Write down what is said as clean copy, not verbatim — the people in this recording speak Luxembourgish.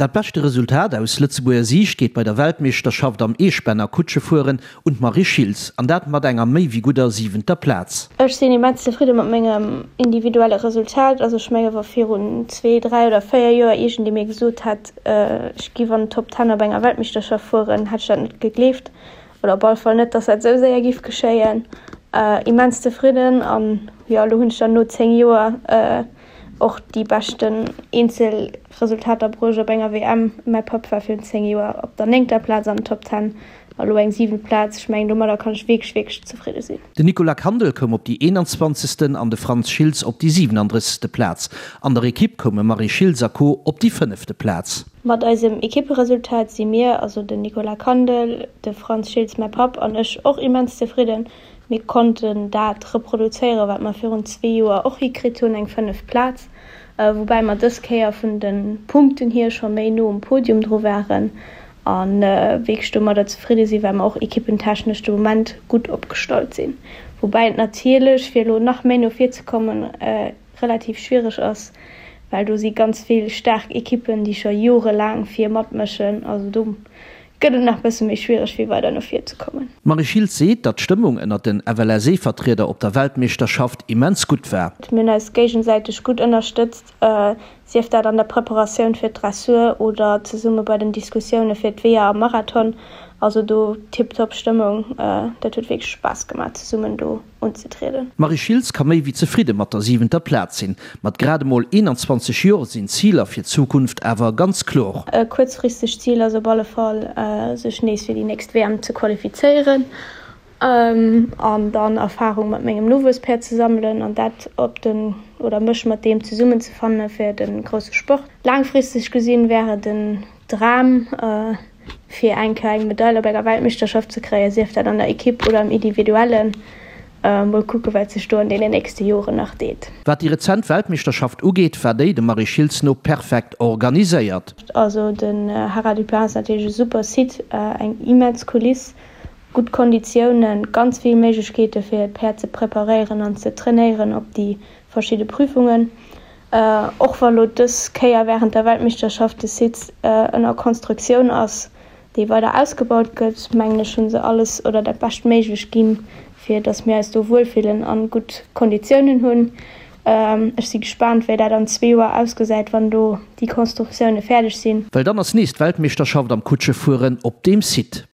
Dat beschte Resultat aus Lëtzebuerger Siicht geet bei der Weltmeeschterschaft am Eespänner Kutschefueren un d'Marie Schiltz, an dat mat enger méi wéi gudder siwenter Plaz. Ech sinn immens zefridde mat mengem individuelle Resultat. Also ech menge wa virun zwee, dräi oder véier Joer iergendee mir gesot hätt, ech giff an den Top Ten op enger Weltmeeschterschaft fueren, hätt ech dat net gegleeft. Oder op alle Fall net, dass dat esou séier giff geschéien. Immens zefridden an jo, elo hunn ech dann no 10 Joer och déi beschten Eenzelresultater bruecht op enger WM. Mäi Papp war virun 10 Joer op der néngter Plaz an den Top Ten a lo eng siwent Plaz. Ech mengen domadder kann ech wierklech, wierklech zefridde sinn. Den Nicolas Kandel koum op déi 21. An de Frantz Schiltz op déi 37. Plaz. An der Ekipp koume Marie Schiltz a Co op déi fënnefte Plaz. Mat eisem Ekipperesultat si mir, also den Nicolas Kandel, de Frantz Schiltz, mäi Papp, an ech, och immens zefridden. Mir konnten dat reproduzéieren, wat mer virun zwee Joer och hikritt hunn, eng fënneft Plaz, woubäi mer dës Kéier vun de Punkten hier scho méi no um Podium dru waren a wierklech domadder zefridde sinn, well mer och ekippentechnesch de Moment gutt opgestallt sinn. Woubäi et natierlech, fir elo nach méi no vir ze kommen, relativ schwiereg ass, well do si ganz vill staark Ekippen, déi scho jorelaang vir matmëschen. Also do gëtt et nach bësse méi schwiereg fir weider no vir ze kommen. D'Marie Schiltz seet, datt d'Stëmmung ënnert den FLSE-Vertrieder op der Weltmeeschterschaft immens gutt war. Mir hunn eis géigesäiteg gutt ënnerstëtzt, sief dat an der Preparatioun fir d'Dressur oder zesumme bei den Diskussioune fir d'Weeër am Marathon. Also do tiptop Stëmmung, dat huet wierklech Spaass gemaach zesummen do unzetrieden. D'Marie Schiltz ka méi wéi zefridde mat der siwenter Plaz sinn. Mat grad emol 21 Jor sinn d'Ziler fir d'Zukunft awer ganz klor. E kuerzfristegt Zil ass op alle Fall, sech nees fir déi nächst WM ze qualifizéieren an dann Erfarung mat mengem Nowuesspäerd ze sammelen an dat op den, oder mech mat deem zesummenzefanne fir de grousse Sport. Laangfristeg gesinn wär et en Dram, fir eng Kéier eng Medail op enger Weltmeeschterschaft ze kréien, sief dat an der Ekipp oder am Individuellen. Mol kucke wat sech do an deenen nächste Joren nach deet. Wat déi rezent Weltmeeschterschaft ugeet, war déi dem Marie Schiltz no perfekt organiséiert. Also den Haras du Pin ass natierlech e super Site, eng immens Kuliss, gutt Konditiounen, ganz vill Méiglechkeete fir d'Päerd ze preparéieren an ze trainéieren op déi verschidde Prüfungen. Och wa lo dës Kéier wärend der Weltmeeschterschaft de Site ënner Konstruktioun ass, dee weider ausgebaut gëtt, mengen ech hu se alles oder dat Beschtméiglecht ginn, fir datt mir eis do wuelfillen an gutt Konditiounen hunn. Ech si gespaant, wéi dat an zwee Joer ausgesäit, wann do déi Konstruktioune fäerdeg sinn. Well dann ass nees d'Weltmeeschterschaft am Kutschefueren op deem Site.